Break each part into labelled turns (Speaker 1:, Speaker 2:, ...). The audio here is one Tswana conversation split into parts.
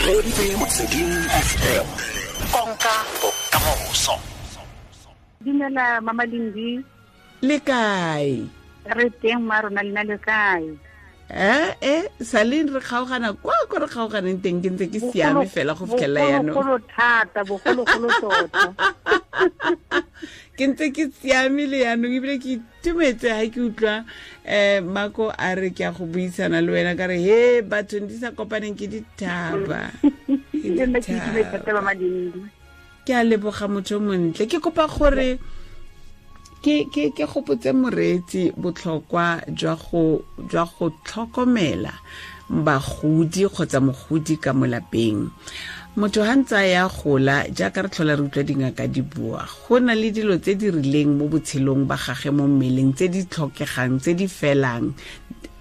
Speaker 1: Reeditse Motsweding FM, konka bokamoso.
Speaker 2: Dumela Mama Lindi.
Speaker 3: Le kae?
Speaker 2: Re teng ma rona, lena le kae?
Speaker 3: Saleng re kgaogana kwa ko re kgaoganeng teng, ke ntse ke siame fela go fitlhelela yaanong.
Speaker 2: Bogologolo thata, bogologolo tota.
Speaker 3: Ke ntse ke siame le yaanong, ebile ke itumetse ga ke utlwa Mako a re ke a go buisana le wena, ka re he batho di sa kopaneng ke dithaba.
Speaker 2: Le nna ke itumetse thata, Mama Lindi.
Speaker 3: Ke a leboga motho o montle. Ke kopa gore ke gopotse moreetsi botlhokwa jwa go tlhokomela bagodi kgotsa mogodi ka mo lapeng. Motho ha ntse a ya gola, jaaka re tlhola re utlwa dingaka di bua, go na le dilo tse di rileng mo botshelong ba gage mo mmeleng tse di tlhokegang, tse di felang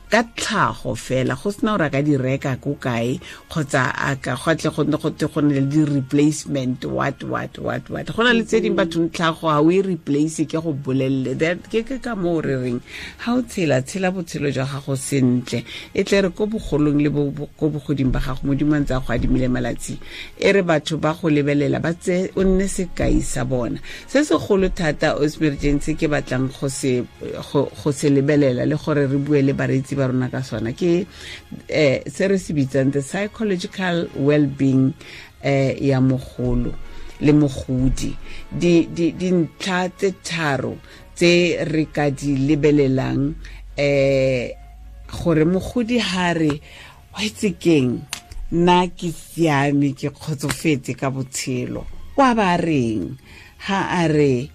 Speaker 3: ka tlhago fela, go sena gore a ka di reka ko kae kgotsa a ka go tle go nne go te go nne le di-replacement what what what what. Go na le tse dingwe batho tlhago ga o e replace, ke go bolelele. That ke ka moo re reng ga o tshela, tshela botshelo jwa gago sentle, e tle re ko bogolong le ko bogoding ba gago, Modimo a ntse a go adimile malatsi, e re batho ba go lebelela ba tse o nne sekai sa bona. Se segolo thata o emergency ke batlang go se lebelela le gore re bue le bareetsi ba rona ka sona ke se re se bitsang the psychological well-being ya mogolo le mogodi. Dintlha tse tharo tse re ka di lebelelang gore mogodi ha re wa itse keng, nna ke siame, ke kgotsofetse ka botshelo, wa ba reng? Ha a re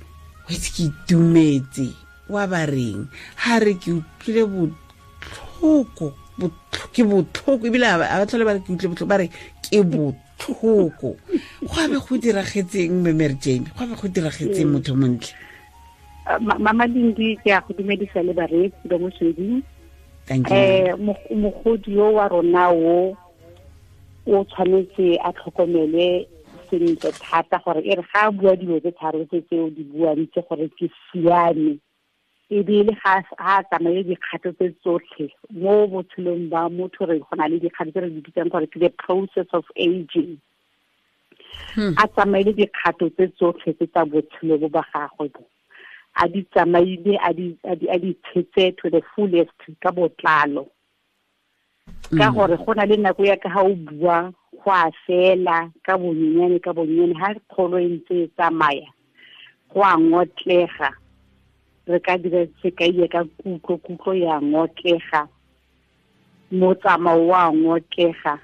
Speaker 3: wa itse ke itumetse, wa ba reng? Ha re ke utlwile botlhoko, ke botlhoko, ebile a ba tlhole ba re ke utlwile botlhoko, ba re ke botlhoko. Go a be go diragetseng, Mme Mary Jane? Go a be go diragetseng, motho montle?
Speaker 2: Mama Lindi, ke a go dumedisa le bareetsi ba Motsweding.
Speaker 3: Thank you.
Speaker 2: Mogodi yo wa rona o tshwanetse a tlhokomelwe sentle thata, gore e re ga a bua dilo tse tharo tse tseo di buang tse gore ke siame, ebile ga a tsamaye dikgato tse tsotlhe mo botshelong ba motho. Re go na le dikgato tse re di bitsang gore ke the process of aging. A tsamaile dikgato tse tsotlhe tse tsa botshelo bo ba gagwe bo, a di tsamaile, a di tshetse to the fullest ka botlalo, ka gore go na le nako ya ka ga o bua go a fela ka bonyenyane ka bonyenyane, ha kgolo e ntse e tsamaya go a ngotlega. Re ka dira sekai ka kutlo, kutlo ya ngotlega, motsamao wa ngotlega,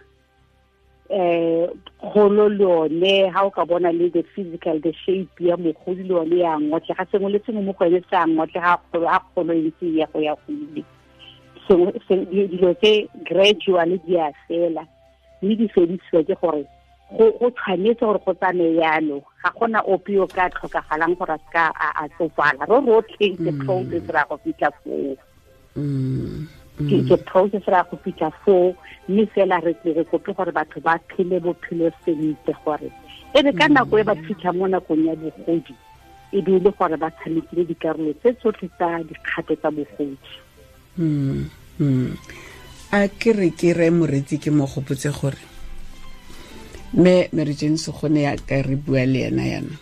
Speaker 2: kgolo le yone ha o ka bona le the physical, the shape ya mogodi le yone ya ngotlega, sengwe le sengwe mo go ene se a ngotlega ha kgolo e ntse ya go ya go ile. Dilo tse gradually di a fela, mme di fedisiwa ke gore go tshwanetse gore go tsamaye yalo. Ga gona ope yo ka tlhokagalang gore a seka a tsofala, ro rotlhe ke process ra go fitlha foo. Ke process ra go fitlha foo, mme fela re tle re kope gore batho ba phele bophelo sentle, gore e re ka nako e ba fitlha mo nakong ya bogodi e be e le gore ba tshamekile dikarolo tse tsotlhe tsa dikgato tsa bogodi.
Speaker 3: A ke re ke re moreetsi ke mo gopotse gore mme Mary Jane Segone ya ka re bua le ena yana,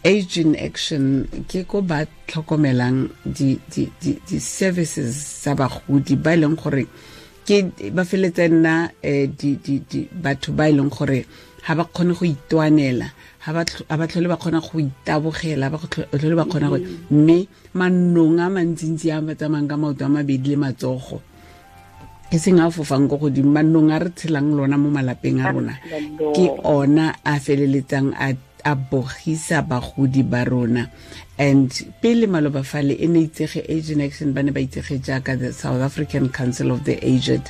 Speaker 3: Age in Action ke ko ba tlhokomelang di services tsa bagodi ba e leng gore ke ba feletse nna di batho ba e leng gore ha ba kgone go itwanela, ha ba tlhole ba kgona go itabogela, ba tlhole ba kgona go, mme manong a mantsintsi a ba tsamayang ka maoto a mabedi le matsogo, e seng a fofang ko godimo, manong a re tshelang lona mo malapeng a rona ke ona a feleletsang a bogisa bagodi ba rona. And pele maloba fale e ne itsege Age in Action, ba ne ba itsege jaaka the South African Council of the Aged,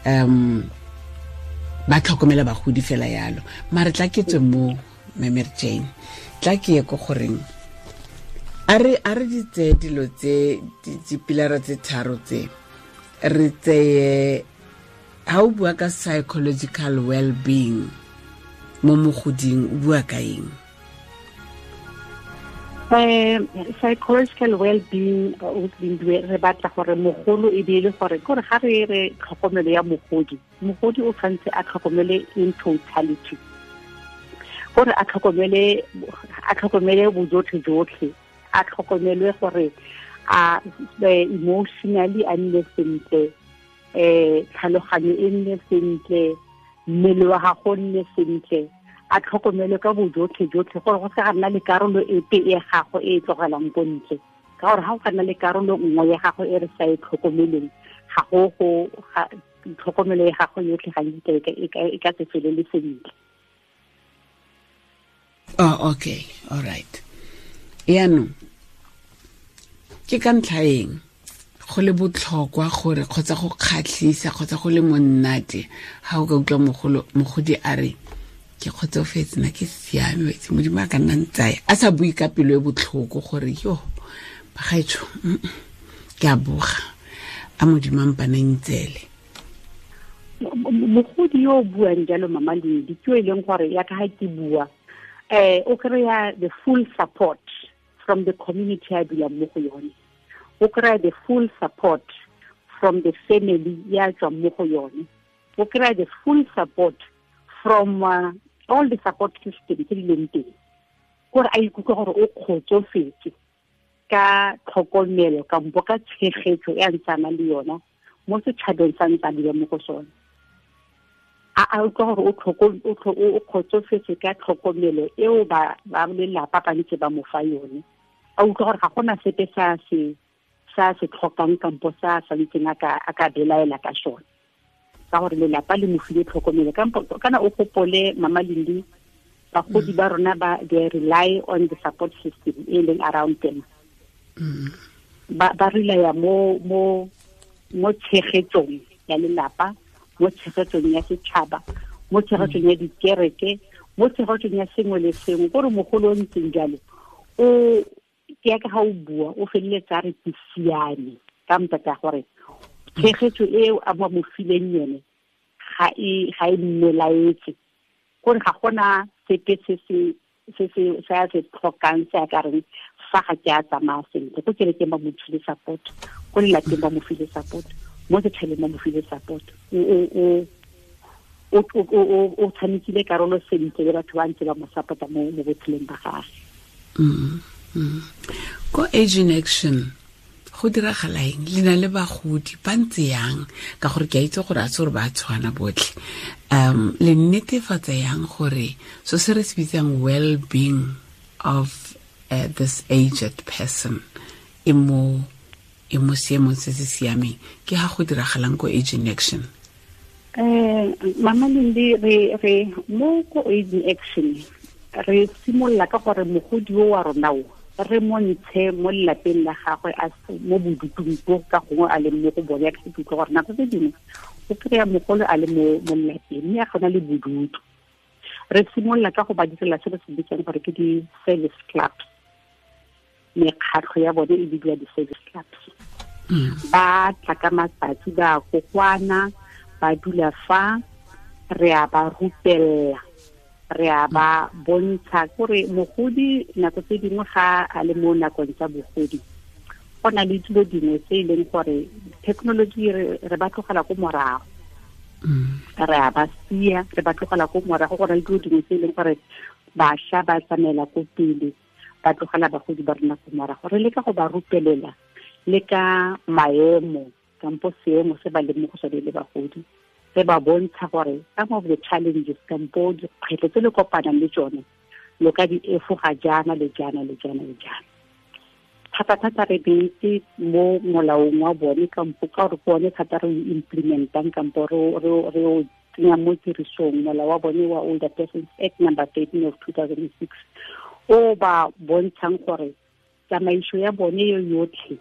Speaker 3: ba tlhokomela bagodi fela yalo. Mare tla ke tswe mo Mme Mary Jane, tla ke ye ko goreng a re di tseye dilo tse, dipilara tse tharo tse, re tseye ha o bua ka psychological well-being mo mogoding, o bua ka eng?
Speaker 2: Psychological well-being re batla gore mogolo e be le gore gore ga re re tlhokomelo ya mogodi, mogodi o tshwanetse a tlhokomele in totality, gore a tlhokomele bojotlhe jotlhe, a tlhokomelwe gore a emotionally a nne sentle, tlhaloganyo e nne sentle, mmele wa gago nne sentle, a tlhokomele ka bojotlhe jotlhe gore go se ga nna le karolo epe e gago e tlogelang ko ntle, ka gore ga go ka nna le karolo nngwe ya gago e re sa e tlhokomeleng, ga go tlhokomelo ya gago yotlhe ga e ka se felele sentle.
Speaker 3: Oh, okay, all right. Yaanong ke ka ntlha eng go le botlhokwa gore kgotsa go kgatlhisa kgotsa go le monnate ga o ka utlwa mogodi a re ke kgotsofetse, nna ke siame, wetse Modimo a ka nna ntsaya, a sa bue ka pelo e botlhoko gore yo bagaetsho ke a boga, a Modimo a mpana ntsele.
Speaker 2: Mogodi yo o buang jalo, Mama Lindi, ke yo e leng gore ya ka ga ke bua, o kry-a the full support from the community a dulang mo go yone, o kry-a the full support from the family ya tswang mo go yone, o kry-a the full support from all the support system tse di leng teng, gore a ikutlwe gore o kgotsofetse ka tlhokomelo kampo ka tshegetso e a ntsana le yona mo setšhabeng sa ntse a dula mo go sone. A utlwa gore o kgotsofetse ka tlhokomelo eo ba lelapa ba ntse ba mo fa yone, a utlwa gore ga gona sepe sa se tlhokang kampo sa santseng a ka belaela ka sone, ka gore lelapa le mo file tlhokomelo. Kana o gopole, Mama Lindi, bagodi ba rona ba they rely on the support system e leng around them. Ba relaya mo tshegetsong ya lelapa, mo tshegetsong ya setšhaba, mo tshegetsong ya dikereke, mo tshegetsong ya sengwe le sengwe. Gore mogolo o ntseng jalo o ke ya ka ga o bua o feleletsa re ke siame ka ntata gore tshegetso eo a mo fileng yone ga e mmelaetse, gore ga gona sepe se se tlhokang se a ka reng fa ga ke a tsamaya sentle. Ko kerekeng ba mo file support, ko lelapeng ba mo file support, mo setšhabeng ba mo file support. O tshamekile karolo sentle le batho ba ntse ba mo support-a mo botshelong ba gagwe.
Speaker 3: Ko Age in Action go diragala eng? Le na le bagodi ba ntse yang? Ka gore ke a itse gore a se gore ba tshwana botlhe. Le netefatsa yang gore so se re se bitsang well-being of this aged person e mo seemong se se siameng, ke ga go diragalang ko Age in Action?
Speaker 2: Mama Lindi, re mo ko Age in Action re simolola ka gore mogodi o wa rona o re montshe mo lelapeng la gagwe a mo bodutung bo ka gongwe a leng mo go bone. Ke utlwa gore nako tse dingwe o kry-a mogolo a le mo lelapeng mme a gona le bodutu. Re simolola ka go ba direla se re se bitsang gore ke di-service clubs, mekgatlho ya bone e bidiwa di-service clubs. Ba tla ka matsatsi, ba kokwana, ba dula fa, re a ba rupella, re a ba bontsha gore mogodi nako tse dingwe ga a le mo nakong tsa bogodi go na le dilo dingwe tse e leng gore technology re ba tlogela ko morago, re a ba sia, re ba tlogela ko morago. Go na le dilo dingwe tse e leng gore bašwa ba tsamaela ko pele, ba tlogela bagodi ba rona ko morago. Re leka go ba rupelela le ka maemo kampo seemo se ba leng mo go sone le bagodi, re ba bontsha gore some of the challenges kampo dikgwetlho tse le kopanang le tsone lo ka di efoga jaana le jaana le jaana le jaana. Thata-thata re beetse mo molaong wa bone kampo ka gore ke one thata re implementang kampo re o tsenya mo tirisong, molao wa bone wa Older Persons Act number 13 of 2006 o ba bontshang gore tsamaiso ya bone yo yotlhe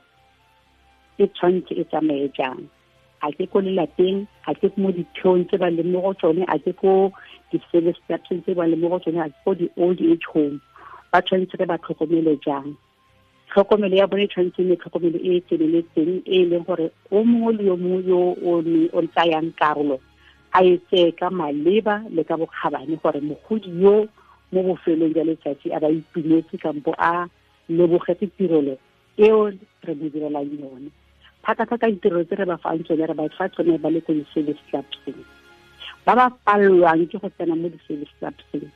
Speaker 2: e tshwanetse e tsamaye jang. A ke ko lelapeng, a ke mo ditheong tse ba leng mo go tsone, a ke ko di-service clubs tse ba leng mo go tsone, a ke ko di-old age home, ba tshwanetse re ba tlhokomele jang. Tlhokomelo ya bone e tshwanetse nne tlhokomelo e e tseneletseng, e leng gore o mongwe le yo mongwe yo o tsayang karolo a e tseye ka maleba le ka bokgabane gore mogodi yo mo bofelong jwa letsatsi a ba itumetse kampo a lebogetse tirelo eo re mo direlang yone. Thata-thata ditirelo tse re ba fang tsone, re ba fa tsone ba le ko di-service clubseng. Ba ba palelwang ke go tsena mo di-service clubseng,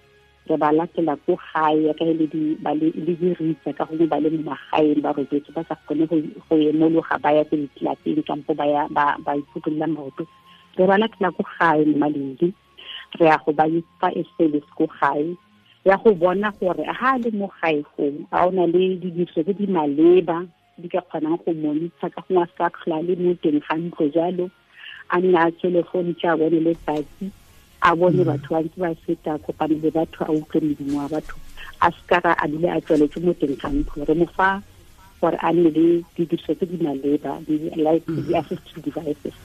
Speaker 2: re ba latela ko gae ka le diritsa ka gongwe ba le mo magaeng ba robetse ba sa kgone go emologa ba ya ko ditlelapeng kampo ba ya ba iphutholola maoto. Re ba latela ko gae mo Malindi, re ya go ba fa e service ko gae, ya go bona gore ha le mo gae foo a o na le didiriso tse di maleba di ka kgonang go monitsha ka gongwe a se ka tlhola le mo teng ga ntlo jalo, a nne a tswele fo ntse a bone letsatsi, a bone batho ba ntse ba feta, kopane le batho, a utlwe modumo wa batho, a se ka a dule a tswaletse mo teng ga ntlo. Re mo fa gore a nne le didiriso tse di maleba, di-assistive devices.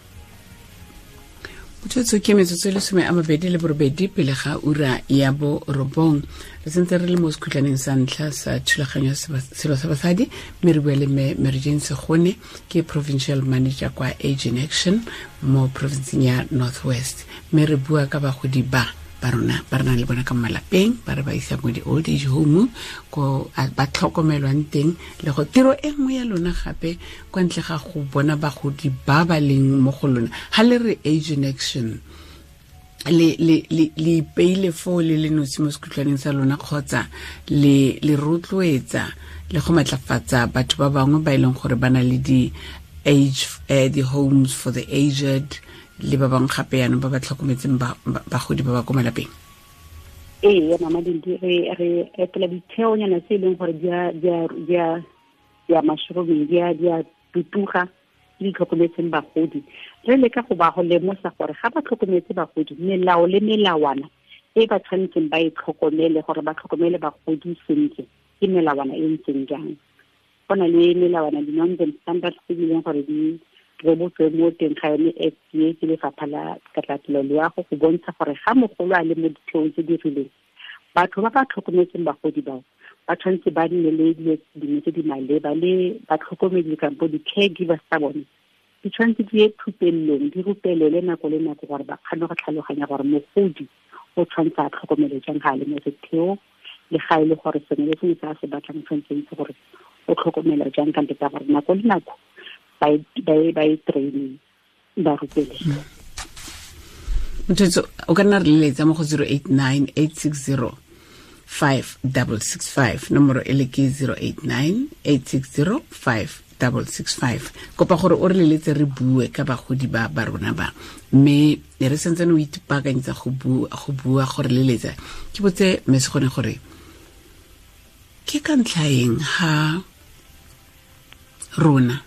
Speaker 3: Motsotso ke metsotso e 28 pele ga ura ya 9. Re sentse re le mo sekhutlwaneng sa ntlha sa thulaganyo ya selo sa basadi, mme re bua le mme Mary Jane Segone, ke provincial manager kwa Age in Action mo provinceng ya North West. Mme re bua ka bagodi ba rona ba re nang le bona ka malapeng, ba re ba isa mo di-old age home ko ba tlhokomelwang teng, le go tiro e nngwe ya lona gape kwa ntle ga go bona bagodi ba ba leng mo go lona. Ha le re Age in Action, le ipeile foo le le nosi mo sekhutlwaneng sa lona, kgotsa le rotloetsa le go matlafatsa batho ba bangwe ba e leng gore ba na le di-age di-homes for the aged le ba bangwe gape yanong ba ba tlhokometseng bagodi ba ba ko malapeng?
Speaker 2: Ee, Mama Dindi, re etela ditheonyana tse e leng gore di a mushrooming, di a tutuga, di tlhokometseng bagodi. Re leka go ba go lemosa gore ga ba tlhokometse bagodi, melao le melawana e ba tshwanetseng ba e tlhokomele gore ba tlhokomele bagodi sentle ke melawana e ntseng jang. Go na le melawana, di-norms and standards tse di leng gore di rebotswe mo teng ga yone FDA ke lefapha la katlatelo loago go bontsha gore ga mogolo a le mo ditheong tse di rileng, batho ba ba tlhokometseng bagodi bao ba tshwanetse ba nne le dilo dingwe tse di maleba, le batlhokomedi kampo di-caregivers tsa bone di tshwanetse di ye thupelelong, di rupelele nako le nako gore ba kgone go tlhaloganya gore mogodi o tshwanetse a tlhokomele jang ga a le mo setheong, le ga e le gore sengwe le sengwe se a se batlang tshwanetse itse gore o tlhokomela jang ka ntle gore nako le nako ba e training, ba rupelele.
Speaker 3: Motho o ka nna re leletsa mo go 089 860 5665, nomoro e le ke 089 860 5665. Kopa gore o re leletse re bue ka bagodi ba ba rona ba, mme re sentse o ipaakanyetsa go bua gore leletsa. Ke botse mme Segone gore ke ka ntlha eng ha rona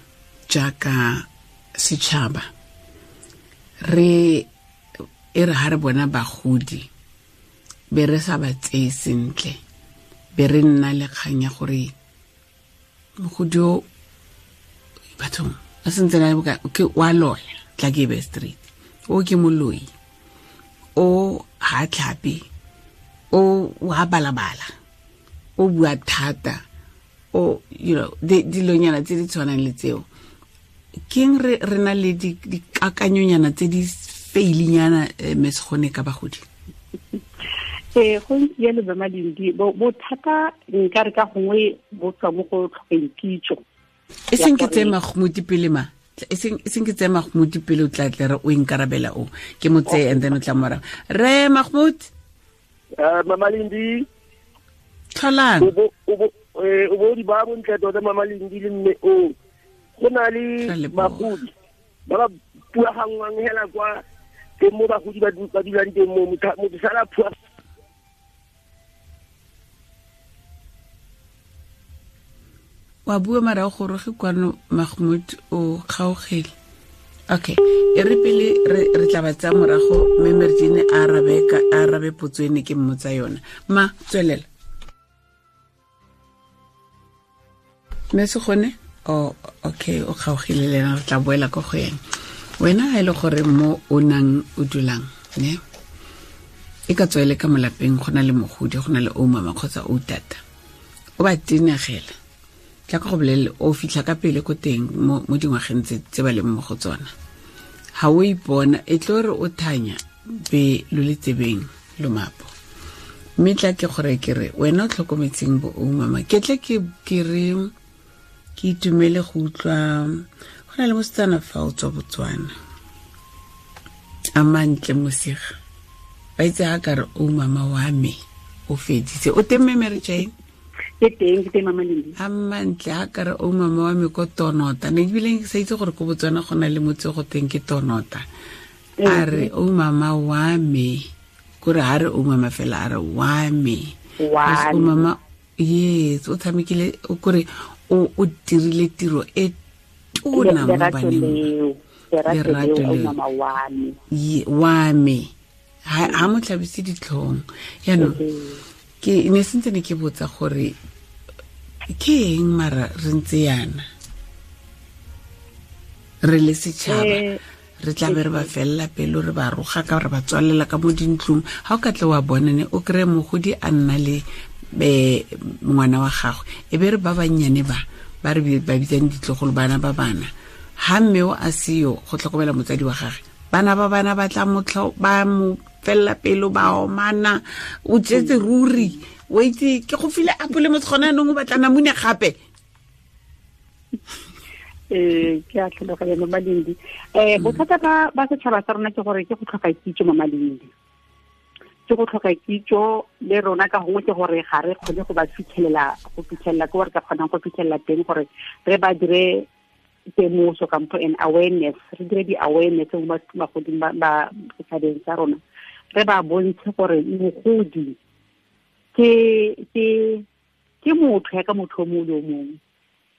Speaker 3: jaaka setšhaba re e re ha re bona bagodi be re sa ba tseye sentle, be re nna le kgang ya gore mogodi o bathong a sentse na ke wa loya, tla ke be street, o ke moloi, o ha tlhape, o wa balabala, o bua thata, o you know dilonyana tse di tshwanang le tseo. Keng re na le dikakanyonyana tse di feilinyana mme Segone ka bagodi?
Speaker 2: Go ntse jalo ba Malindi, bothata nka re ka gongwe bo tswa mo go tlhokeng kitso.
Speaker 3: E seng ke tseye Mahmoud pele ma, e seng ke tseye Mahmoud pele o tla tle re o inkarabela o ke mo tseye and then o tla morago. Re Mahmoud,
Speaker 4: Mama Lindi,
Speaker 3: tlholang
Speaker 4: o bo di ba bontle tota Mama Lindi le mme o go na le bagodi ba ba puaganngwang hela kwa teng mo bagodi ba dulang teng mo, motho sala phua.
Speaker 3: Wa bua mara o goroge kwano Mahmoud, o kgaogele. Okay, e re pele re tla ba tsaya morago mme Mary Jane a arabe potso ene ke mmotsa yona. Ma tswelela. Mme Segone, oh okay, o kgaogile le ena, re tla boela ko go ene. Wena ha e le gore mo o nang o dulang, ne? E ka tswa e le ka molapeng go na le mogodi, go na le o mama kgotsa o tata. O ba tenegela. Tla ka go bolelele o fitlha ka pele ko teng mo dingwageng tse ba leng mo go tsona. Ha o ipona e tlo re o thanya be lo le tsebeng lomapo. Mme tla ke gore ke re wena o tlhokometseng bo o mama, ke tle ke re ke itumele go utlwa go na le mosetsana fa o tswa Botswana a mantle mosiga ba itse ga ka re o mama wa me o feditse o teng mme Mary Jane?
Speaker 2: Ke teng, ke teng mama Lindi.
Speaker 3: A mantle a ka re o mama wa me ko Tonota, ne ebile ke sa itse gore ko Botswana go na le motse go teng ke Tonota. A re o mama wa me, kore ha re o mama fela, a re wa me. O mama, yes, o tshamekile, o kore o dirile tiro e tona mo baneng.
Speaker 2: Lerato leo, mama wa me.
Speaker 3: Wa me. Ha mo tlhabise ditlhong. Yaanong ke ne sentse ne ke botsa gore ke eng mara re ntse yana re le setšhaba re tla be re ba felela pelo, re ba roga ka re ba tswalela ka mo dintlong. Ha o ka tle wa bona ne o kry-e mogodi a nna le ngwana wa gagwe, e be re ba bannyane ba ba re ba bitsang ditlogolo, bana ba bana, ha mme o a seo go tlhokomela motsadi wa gagwe, bana ba bana ba tla ba mo felela pelo, ba omana, o tsetse ruri, o itse ke go file apole mo gona anong o batla namune gape.
Speaker 2: Ke a tlhaloganya mama Lindi. Bothata ba setšhaba sa rona ke gore ke go tlhoka kitso mama Lindi. Ke go tlhoka kitso le rona ka gongwe ke gore ga re kgone go ba fitlhelela, go fitlhelela ke gore ka kgonang go fitlhelela teng gore re ba dire temoso kampo an awareness, re dire di-awareness mo bagoding ba setšhabeng sa rona, re ba bontshe gore mogodi ke motho ya ka motho o mongwe le o mongwe.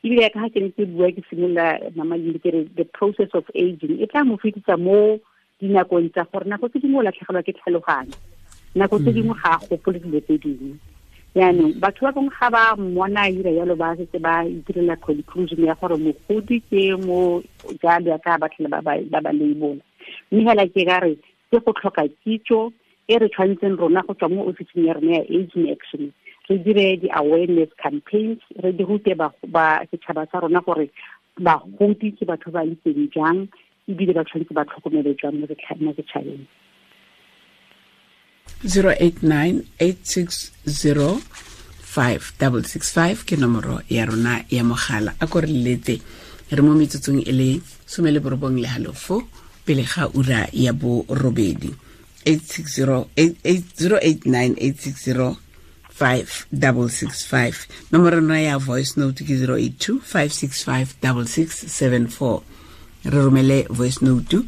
Speaker 2: Ebile ya ka ga ke ne ke bua ke simolola mama Lindi ke re the process of aging e tla mo fetisa mo dinakong tsa gore nako tse dingwe o latlhegelwa ke tlhaloganyo, nako tse dingwe ga a gopole dilo tse dingwe. Yaanong batho ba bangwe ga ba mmona a ira jalo ba setse ba itirela conclusion ya gore mogodi ke mo jalo ya ka ba tlhele ba ba labola. Mme hela ke ka re ke go tlhoka kitso e re tshwanetseng rona go tswa mo ofising ya rona ya Aging Action, re dire di-awareness campaigns, re di rute ba setšhaba sa rona gore bagodi ke batho ba ntseng jang, ebile ba tshwanetse ba tlhokomele jang mo setšhabeng.
Speaker 3: 089-860-5665 ke nomoro ya rona ya mogala. A ko re leletse, re mo metsotsong e le 19:30 pele ga ura ya 8. 089-860-5665. Nomoro rona ya voice note ke 082-565-6674. Re romele voice note,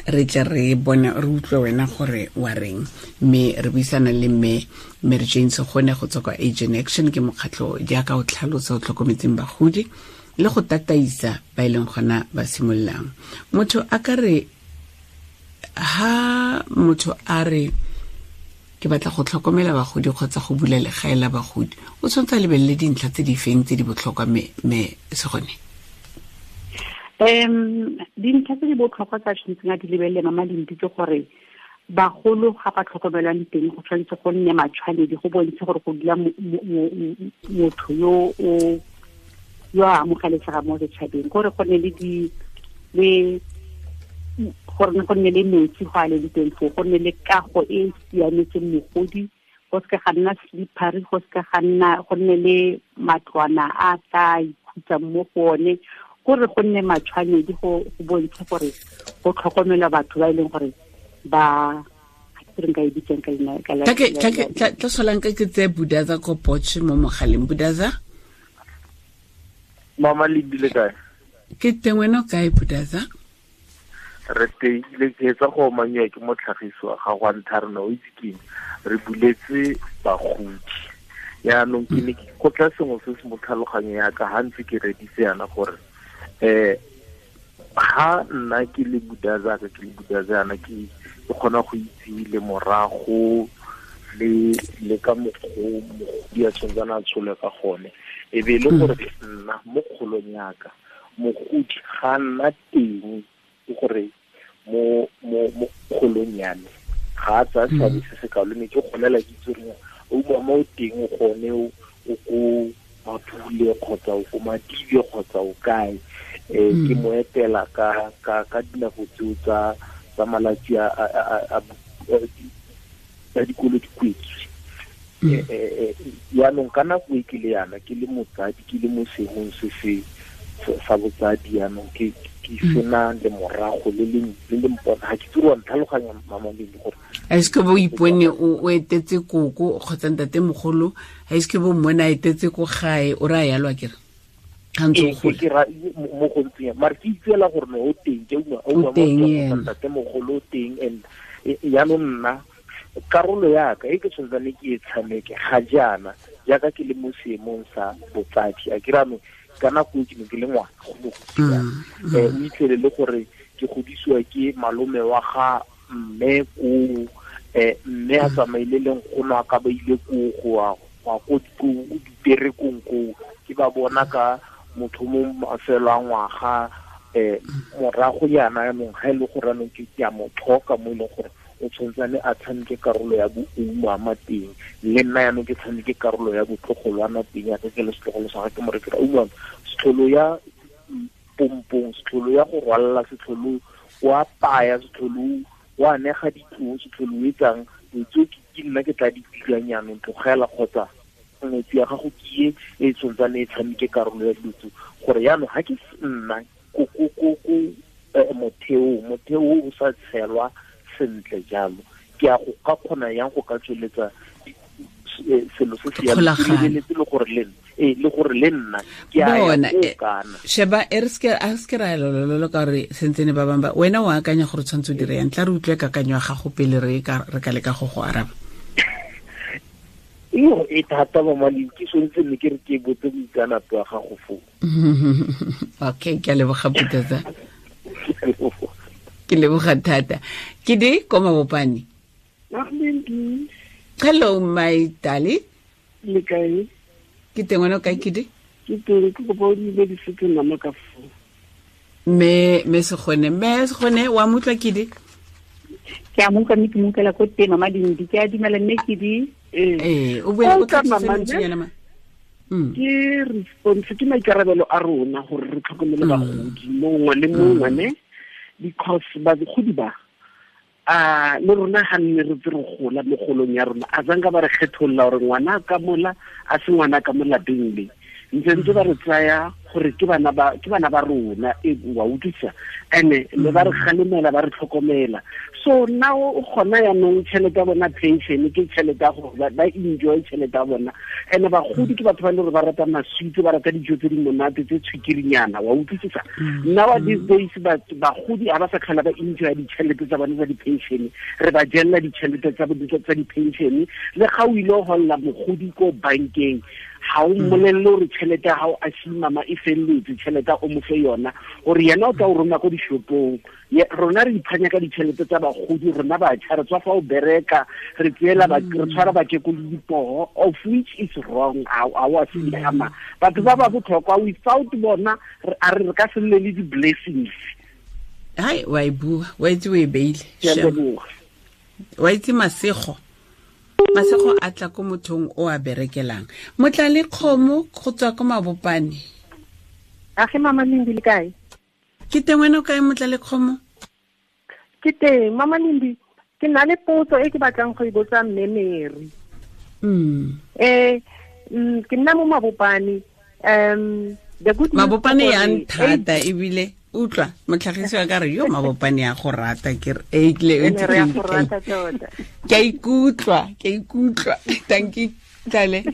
Speaker 3: re tle re bone, re utlwe wena gore wa reng. Mme re buisana le mme Mary Jane Segone go tswa kwa Aging Action, ke mokgatlho jaaka o tlhalosa o tlhokometseng bagodi le go tataisa ba e leng gona ba simololang. Motho a ka re ha motho a re ke batla go tlhokomela bagodi kgotsa go bula legae la bagodi, o tshwanetse a lebelele dintlha tse di feng tse di botlhokwa mme Segone?
Speaker 2: Dintlha tse di botlhokwa tsa tshwanetseng a di lebelele mama Lindi ke gore bagolo ga ba tlhokomelwang teng go tshwanetse go nne matshwanedi, go bontshe gore go dula motho yo o yo a amogelesega mo setšhabeng, gore go nne le gore go nne le metsi go a leng teng foo, go nne le kago e e siametseng mogodi, go seka ga nna slippery, go seka ga nna, go nne le matlwana a tla ikhutsang mo go one, gore go nne matshwanedi go bontshe gore go tlhokomelwa batho ba e leng gore ba re nka e bitsang ka leina ka la.
Speaker 3: Tla solang ka ke tse Budaza ko Potch mo mogaleng. Budaza?
Speaker 5: Mama Lindi le kae?
Speaker 3: Ke teng, wena o kae Budaza?
Speaker 5: Re teile, ke etsa go omanyiwa ke motlhagisi wa gago wa ntlha rona, o itse keng, re buletse bagodi. Yaanong ke ne ke kgotla sengwe se se mo tlhaloganyo ya ka ha ntse ke reditse yana gore ha nna ke le Budaza ka ke le Budaza yana ke kgona go itse le morago le ka mokgwa mogodi a tshwantsana a tshole ka gone, e be le gore nna mo kgolong yaka mogodi ga nna teng, ke gore mo kgolong ya me ga a tsaya seabe se se kalo, ne ke golela ke itse gore o mama o teng o gone o ko Mapule kgotsa o ko Madibe kgotsa o kae, ke mo etela ka dinako tseo tsa malatsi a tsa dikolo di kwetswe. Yaanong ka nako e ke le yana ke le motsadi, ke le mo seemong se se sa botsadi, yaanong ke sena le morago le le mpona, ga ke tsere wa ntlhaloganya mama Lindi gore
Speaker 3: a se ke bo ipone o etetse koko kgotsa ntate mogolo, a se ke bo mmone a etetse ko gae o re a yalwa kere ga ntse o gola.
Speaker 5: Ke ra mo go ntseng mare ke itseela gore no o teng, ke
Speaker 3: O teng ena.
Speaker 5: ntate mogolo o teng. And yaanong nna karolo yaka e ke tshwantsane ke e tshameke ga jaana jaaka ke le mo seemong sa botsadi, a ke re ka nako e ke ne ke le ngwana go mo godisa. O itlhele le gore ke godisiwa ke malome wa ga mme ko, mme a tsamaile le nkgono a ka ba ile ko go ya ko diperekong ko, ke ba bona ka motho mo mafelo a ngwaga, morago yana yanong ga e le gore anong ke a mo tlhoka mo e leng gore o tshwantsane a tshameke karolo ya boumama teng, le nna yanong ke tshameke karolo ya botlogolwana teng, yaka ke le setlogolo sa ga ke mo rekela umama, setlholo ya pompong, setlholo ya go rwalla, setlholo wa paya, setlholo wa nega ditloo, setlholo o etsang dilo tseo ke nna ke tla di dirang yanong, tlogela kgotsa ngwetsi ya gago ke e tshwantsane e tshameke karolo ya dilo tseo, gore yanong ga ke nna ko motheo o sa tshelwa sentle jalo, ke a go ka kgona yang go ka tsweletsa selo se se yang, ke lebeletse le gore le le gore le nna ke a ya ko kana.
Speaker 3: Sheba e re se ra lololo ka gore sentsene ba bangwe ba wena o akanya gore tshwanetse o dire yang, tla re utlwe kakanyo ya gago pele re ka leka go go araba.
Speaker 5: Iyo e thata mama Lindi, ke tshwanetse ne ke re ke botse boitseanape wa gago foo.
Speaker 3: Okay, ke a leboga Putata. Ke leboga thata. Ke di ko Mabopane. Hello my darling.
Speaker 6: Le kae?
Speaker 3: Ke teng, wena o kae Kidi?
Speaker 6: Ke teng, ke kopa o dumedise nama ka foo.
Speaker 3: Mme Segone wa mo utlwa Kidi?
Speaker 2: Ke a mo utlwa mme ke mo utlwela ko teng mama Lindi, ke a dumela mme Kidi.
Speaker 3: O buela ko tlase lentswenyana ma.
Speaker 6: Ke response, ke maikarabelo a rona gore re tlhokomele bagodi mongwe le mongwe ne, because bagodi ba le rona ga nne re tse re gola mo golong ya rona, a zanka ba re kgetholola gore ngwana ka mola a se ngwana ka mo lapeng le, ntse ba re tsaya gore ke bana ba rona, e wa utlwisa, ene le ba re kgalemela ba re tlhokomela. So now o kgona yanong tšhelete ya bona pension ke tšhelete ya gore ba enjoy tšhelete ya bona, ene bagodi ke batho ba e le gore ba rata maswitse, ba rata dijo tse di monate tse tshwikirinyana, wa utlwisisa. Now these days bagodi ga ba sa tlhola ba enjoy ditšhelete tsa bona tsa di-pension, re ba jella ditšhelete tsa di-pension, le ga o ile go holla mogodi ko bankeng ga o mmolelele gore tšhelete ya gago a mama e felletse, tšhelete o mo fe yona gore yena o tla o roma ko dishopong. Rona re iphanya ka ditšhelete tsa bagodi, rona batjha re tswa fa o bereka, re tseela re tshwara bakekolo dipoho, of which is wrong. A wa siama, batho ba ba botlhokwa without bona a re ka se nne le di-blessings.
Speaker 3: Hai, wa e bua, wa itse o e beile. Wa itse masego a tla ko mothong o a berekelang. Motla le kgomo go tswa ko Mabopane.
Speaker 7: Age mama Lindi le kae?
Speaker 3: Ke teng, wena o kae motla le kgomo?
Speaker 7: Ke teng mama Lindi, ke na le potso e ke batlang go e botsa mme Mary. Ke nna mo Mabopane. The good news,
Speaker 3: Mabopane ya nthata ebile utlwa motlhagisi wa ka re yo Mabopane ya go rata, ke re ke a ikutlwa. Thank you tlale.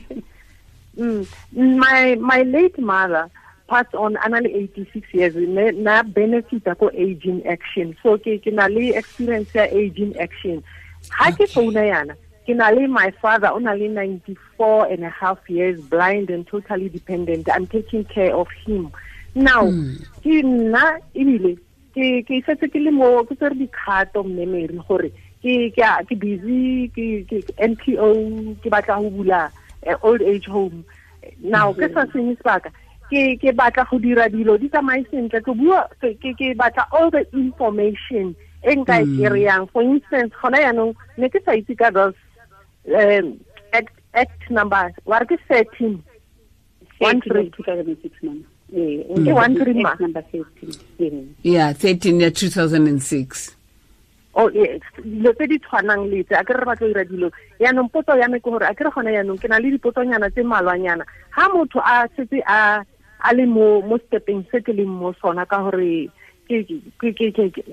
Speaker 7: My late mother passed on ana le 86 years, na benefit ko Aging Action, so ke na le experience ya Aging Action. Ha ke founa yana, ke na le my father o na le 94 and a half years, blind and totally dependent. I'm taking care of him now. Ke nna ebile ke setse ke le mo ke tsere dikgato mme Mary gore ke busy ke NPO, ke batla go bula old age home now. Ke sa senye sebaka, ke batla go dira dilo di tsamaye sentle, ke bua ke batla all the information e nka e kry-ang. For instance, gona yaanong ne ke sa itse ka those act number wa re ke 13
Speaker 2: 2006 mama.
Speaker 7: Ke 13 ma
Speaker 2: number 13.
Speaker 3: Yeah, 13 ya 2006.
Speaker 7: O dilo tse di tshwanang le tse a ke re batlo dira dilo. Yaanong potso ya me ke gore a ke re gone yaanong ke na le dipotsonyana tse mmalwanyana. Ha motho a setse a le mo stepeng se ke leng mo sona ka gore ke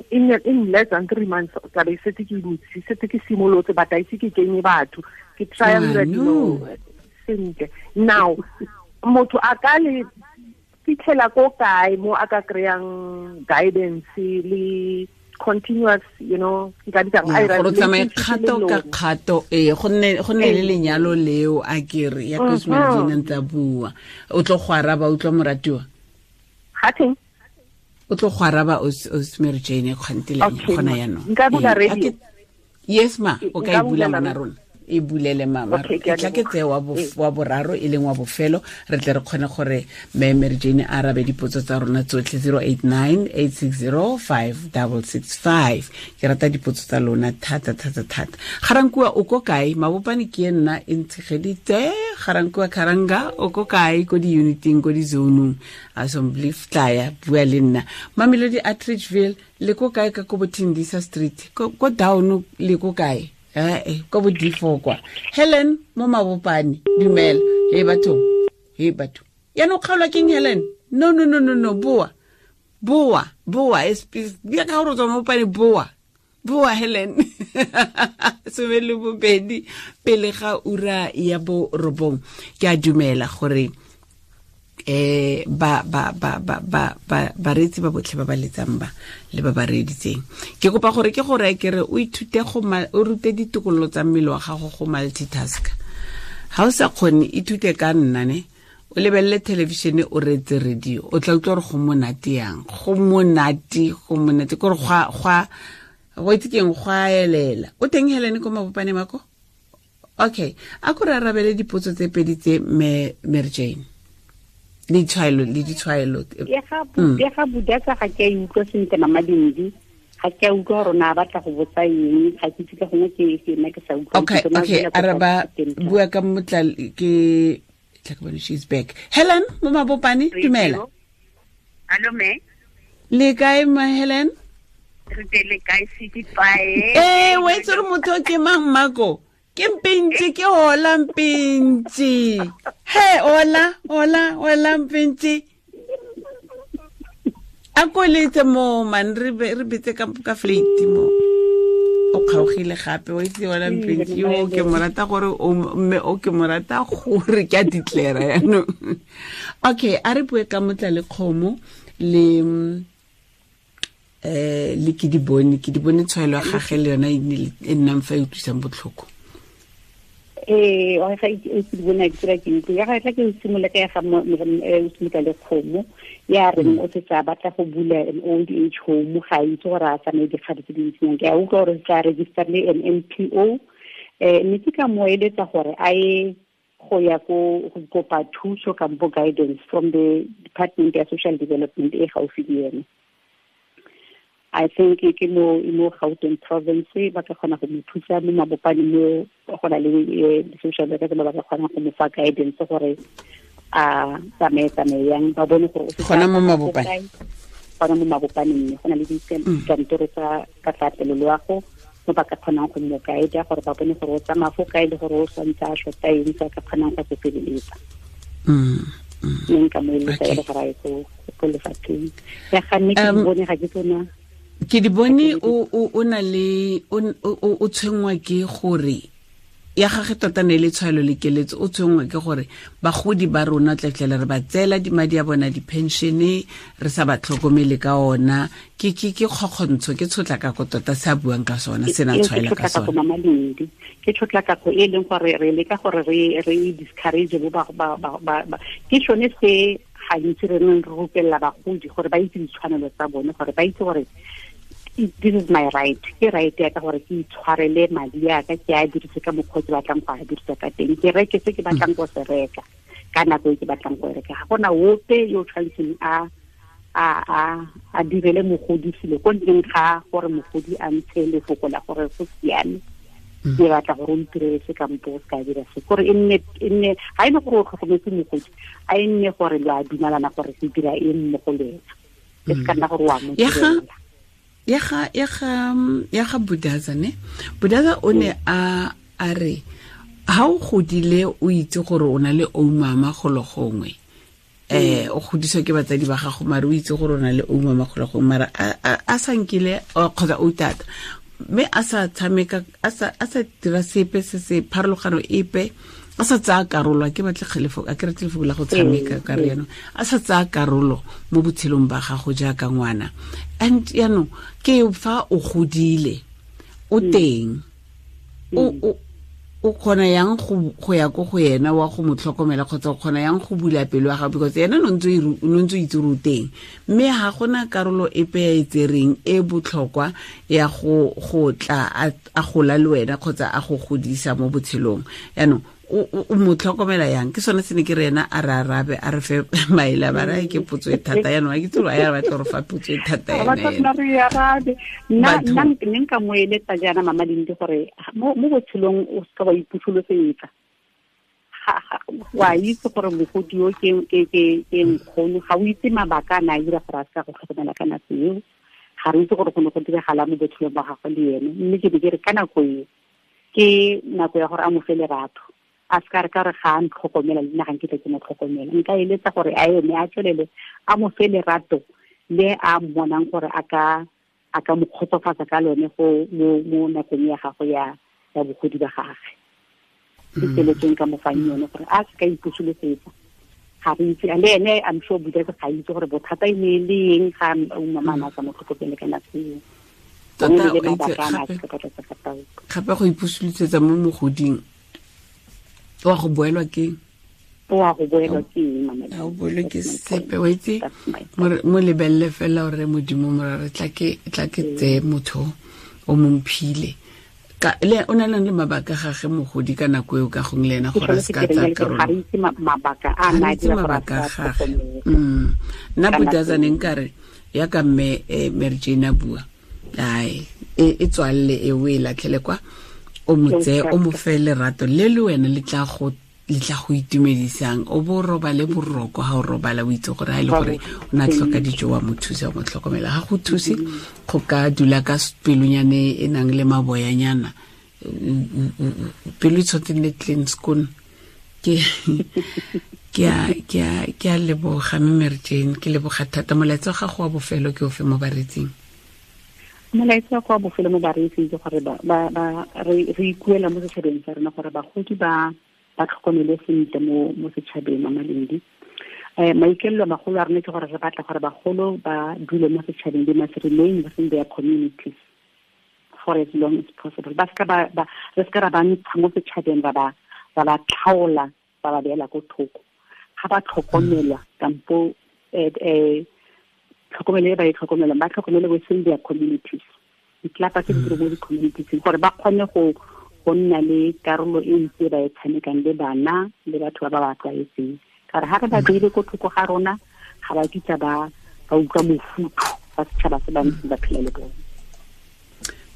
Speaker 7: in less than 3 months tla be setse ke butse, setse ke simolotse, but a ise ke kenye batho, ke try dira dilo sentle. Now motho a ka le fitlhela ko kae mo a ka kry-ang guidance le continuous, you know, nka bitsang a
Speaker 3: ira tsamaye kgato ka kgato go nne le lenyalo leo a kere ya Cosmo Jane ntse bua o tlo go araba o tlo moratiwa
Speaker 7: ga teng
Speaker 3: o tlo go araba o Mary Jane kgantile gona ya no
Speaker 7: nka bula radio.
Speaker 3: Yes ma, o ka e bula ngwana rona, e bulele mama. E tla ke tse wa boraro e leng wa bofelo, re tle re kgone gore mme Mary Jane a arabe dipotso tsa rona tsotlhe. 089 860 5665. Ke rata dipotso tsa lona thata thata thata. Garankua o ko kae? Mabopane ke nna e ntshegeditse. Garankua Karanga o ko kae? Ko di-uniting, ko di-zonong, assembly tlaya bua le nna. Mamelodi Atteridgeville le ko kae? Ka ko Bothindisa Street ko down le ko kae? Ko bo D4 kwa. Helen mo Mabopane, dumela. Hey batho, hey batho. Ya no kgaolwa keng Helen? No no no no no, boa. Boa, boa, ya ka gore o tswa Mabopane, boa. Boa Helen. 12 pele ga ura ya bo 9. Ke a dumela gore ba ba ba ba ba ba bareetsi ba botlhe ba ba letsang ba le ba ba reeditseng, ke kopa gore ke gore ke re o ithute go o rute ditokololo tsa mmele wa gago go multitask. Ha o sa kgone, ithute ka nna ne o lebelele television, o reetse radio, o tla utlwa gore go monate yang, go monate, go monate gore go itse keng, go a elela. O teng Helen ko Mabopane mako? Okay, a ko re arabele dipotso tse pedi tse Mary Jane. Le ditshwaelo, le ditshwaelo.
Speaker 2: Ya ga budatsa ga ke a utlwa sentle mama Dindi, ga ke a utlwa gore na batla go botsa eng, ga ke itse ka gongwe ke nna ke sa utlwa.
Speaker 3: Okay, okay, araba bua ka motla ke tla ke bone she's back. Helen mo Mabopane, dumela.
Speaker 8: Hello me.
Speaker 3: Le kae ma Helen?
Speaker 8: Re tele kae se di pae.
Speaker 3: Wa itse gore motho ke mang mako? Ke mpintsi, ke hola mpintsi. He, hola, hola, hola mpintsi. A ko letse mo man re betse ka flate mo. O kgaogile gape wa itse hola mpintsi. Yo ke mo rata gore o mme o ke mo rata gore ke a declare yaanong. Okay, a re bue ka motla le kgomo le le ke di bone tshwaelo ya gagwe le yona e nnang fa e utlwisang botlhoko.
Speaker 2: Wa ga e ke bona ke tsira ke ntlo ya ga tla ke simolola ka ya ga o le kgomo ya reng o se sa batla go bula an old age home, ga itse gore a tsamaye dikgato tse dintsinyang. Ke a utlwa gore tla register le an NPO, mme ke ka mo eletsa gore a ye go ya ko go kopa thuso kampo guidance from the Department ya Social Development e gaufi le ene. I think ke mo Gauteng province ba ka kgona go mo thusa mo Mabopane mo go na le social workers ba ba ka kgona go mo fa guidance gore a tsamaye yang, ba bone gore o
Speaker 3: gona mo Mabopane,
Speaker 2: gona mo Mabopane mme go na le dikantoro tsa katlaatlelo loago mo ba ka kgonang go mo guide gore ba bone gore o tsamaya fo kae le gore o santse a shota eng se a ka kgonang go se feleletsa. Mme nka mo eletsa e le gore a ye ko lefapheng ya ga mme ke di bone ga ke tsona.
Speaker 3: Ke di bone o na le o tshwenngwa ke gore ya gagwe tota ne le tshwaelo le keletso, o tshwenngwa ke gore bagodi ba rona tlatlele re ba tseela madi a bona di-pensione re sa ba tlhokomele ka ona. Ke kgokgontsho, ke tshotlakako tota se a buang ka sona, se na tshwaela ka sona.
Speaker 2: Ke tshotlakako e leng gore re leka gore re discourage bo ba ke sone se gantsi re neng re rupelela bagodi gore ba itse ditshwanelo tsa bone, gore ba itse gore this is my right, ke right ya ka gore ke itshwarele madi a ka, ke a dirise ka mokgwa ke batlang go a dirisa ka teng, ke reke se ke batlang go se reka ka nako e ke batlang go e reka. Ga gona ope yo tshwanetseng a direle mogodi selo ko ntleng ga gore mogodi a ntshe lefoko la gore go siame, ke batla gore o ntirele se kampo o se ka dira se, gore e nne ga e le gore o tlhokometse mogodi, a e nne gore lo a dumalana gore se dira eng mo go le ena, e se ka nna gore o a mo direla.
Speaker 3: Ya ga Budaza ne. Budaza o ne a re ha o godile o itse gore o na le oumama golo gongwe. O godiswa ke batsadi ba gago mare o itse gore o na le oumama golo gongwe mara a sa nkile kgotsa o tata mme a sa tshameka a sa dira sepe se se pharologano epe a sa tsaya karolo a ke batle kgelefo a ke rate lefoko la go tshameka ka re yaanong a sa tsaya karolo mo botshelong ba gago jaaka ngwana. And yaanong ke fa o godile o teng o kgona yang go ya ko go yena wa go mo tlhokomela kgotsa o kgona yang go bula pelo ya gago because yena no ntse o itse gore o teng mme ga gona karolo epe ya e tsereng e botlhokwa ya go tla a gola le wena kgotsa a go godisa mo botshelong. Yaanong o mo tlhokomela yang? Ke sone se ne ke re ena a re arabe a re fe maele ba re ke potso e thata yaanong a ke tsolo a ya batla gore fa potso e thata
Speaker 2: ena nna nna nka mo eletsa jaana Mama Lindi gore mo botshelong o seka wa ipusolosetsa. Wa itse gore mogodi yo ke nkgono ga o itse mabaka a na a dira gore a seka go tlhokomela ka nako eo, ga re itse gore go ne go diragala mo botshelong ba gagwe le ene. Mme ke be ke re ka nako eo ke nako ya gore a mo fe lerato, a se ka re ka re ga a ntlhokomela le nna ga nkitla ke mo tlhokomela. Nka eletsa gore a eme a tswelele a mo fe lerato le a mmonang gore a ka mo kgotsofatsa ka lone go mo nakong ya gagwe ya bogodi ba gagwe. Ke keletso nka mo fang yone gore a se ka ipusolosetsa. Ga re itse le ene I'm sure Budaza ga itse gore bothata e ne le eng ga mama a sa mo tlhokomele ka nako eo.
Speaker 3: Gape go ipusolosetsa mo mogoding wa go boelwa ke
Speaker 2: eng?
Speaker 3: A o boelwe ke sepe wa itse mo lebelele fela gore modimo morare tla ke tseye motho o mo mphile ka le o na le mabaka gage mogodi ka nako eo ka gongwe le ena gore a se ka tsaya karolo.
Speaker 2: Ga re itse mabaka a na dira gore a
Speaker 3: gage. Nna Budaza ne nkare yaka mme Mary Jane a bua ai e tswalle e o e latlhele kwa o mo tseye o mo fe lerato le le wena le tla go itumedisang o bo robale boroko ha o robala o itse gore ha e le gore o na tlhoka dijo wa mo thusa mo tlhokomela ga go thuse go ka dula ka pelonyane e nang le maboyanyana pelo e tshwanetse nne clean skoon. Ke a leboga mme Mary Jane, ke leboga thata. Molaetsa wa gago wa bofelo ke ofe mo baretsing?
Speaker 2: Molaetsa wa bofelo mo bareetsing ke gore re ikuela mo setšhabeng sa rona gore bagodi ba tlhokomele sentle mo setšhabeng. Mama Lindi, maikaelelo a magolo a rona ke gore re batla gore bagolo ba dule mo setšhabeng, they must remain within their communities for as long as possible. Ba seka re seka ra ba ntsha mo setšhabeng ba ba tlhaola ba ba beela ko thoko. Ga ba tlhokomelwa kampo tlhokomelo e ba e tlhokomelang ba tlhokomele within their communities, ditlelapa tse di dira mo di-communities gore ba kgone go nna le karolo e ntsi ba e tshamekang le bana le batho ba ba tlwaetseng. Ka gore ga re ba beile ko thoko ga rona ga ba kitla ba utlwa mofutho ba setšhaba se ba ntseng ba phela le bone.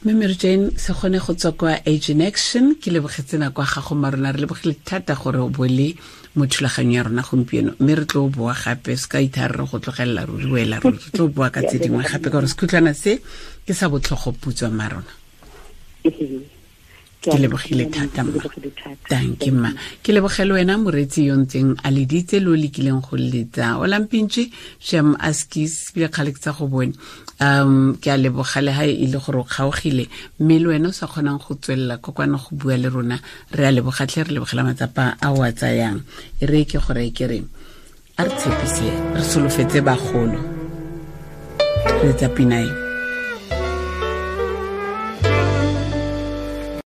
Speaker 3: Mme Mary Jane se kgone go tswa kwa Age in Action, ke lebogetse nako ya gago marona, re lebogile thata gore o bo le mo thulaganyong ya rona gompieno mme re tlo boa gape se ka ithare re go tlogelela ruri wela ruri re tlo boa ka tse dingwe gape ka gore sekhutlwana se ke sa botlhogo putswa marona. Ke lebogile thata mma. Thank you mma. Ke lebogele wena moreetsi yo ntseng a leditse le o lekileng go letsa o lampintše shem askis bile kgale ke tsa go bone. Ke a leboga le ha e le gore o kgaogile mme le wena o sa kgonang go tswelela kokwana go bua le rona re a lebogatlhe re lebogela matsapa a o a tsayang. E re ke gore ke re a re tshepise re solofetse bagolo re tsa pina e.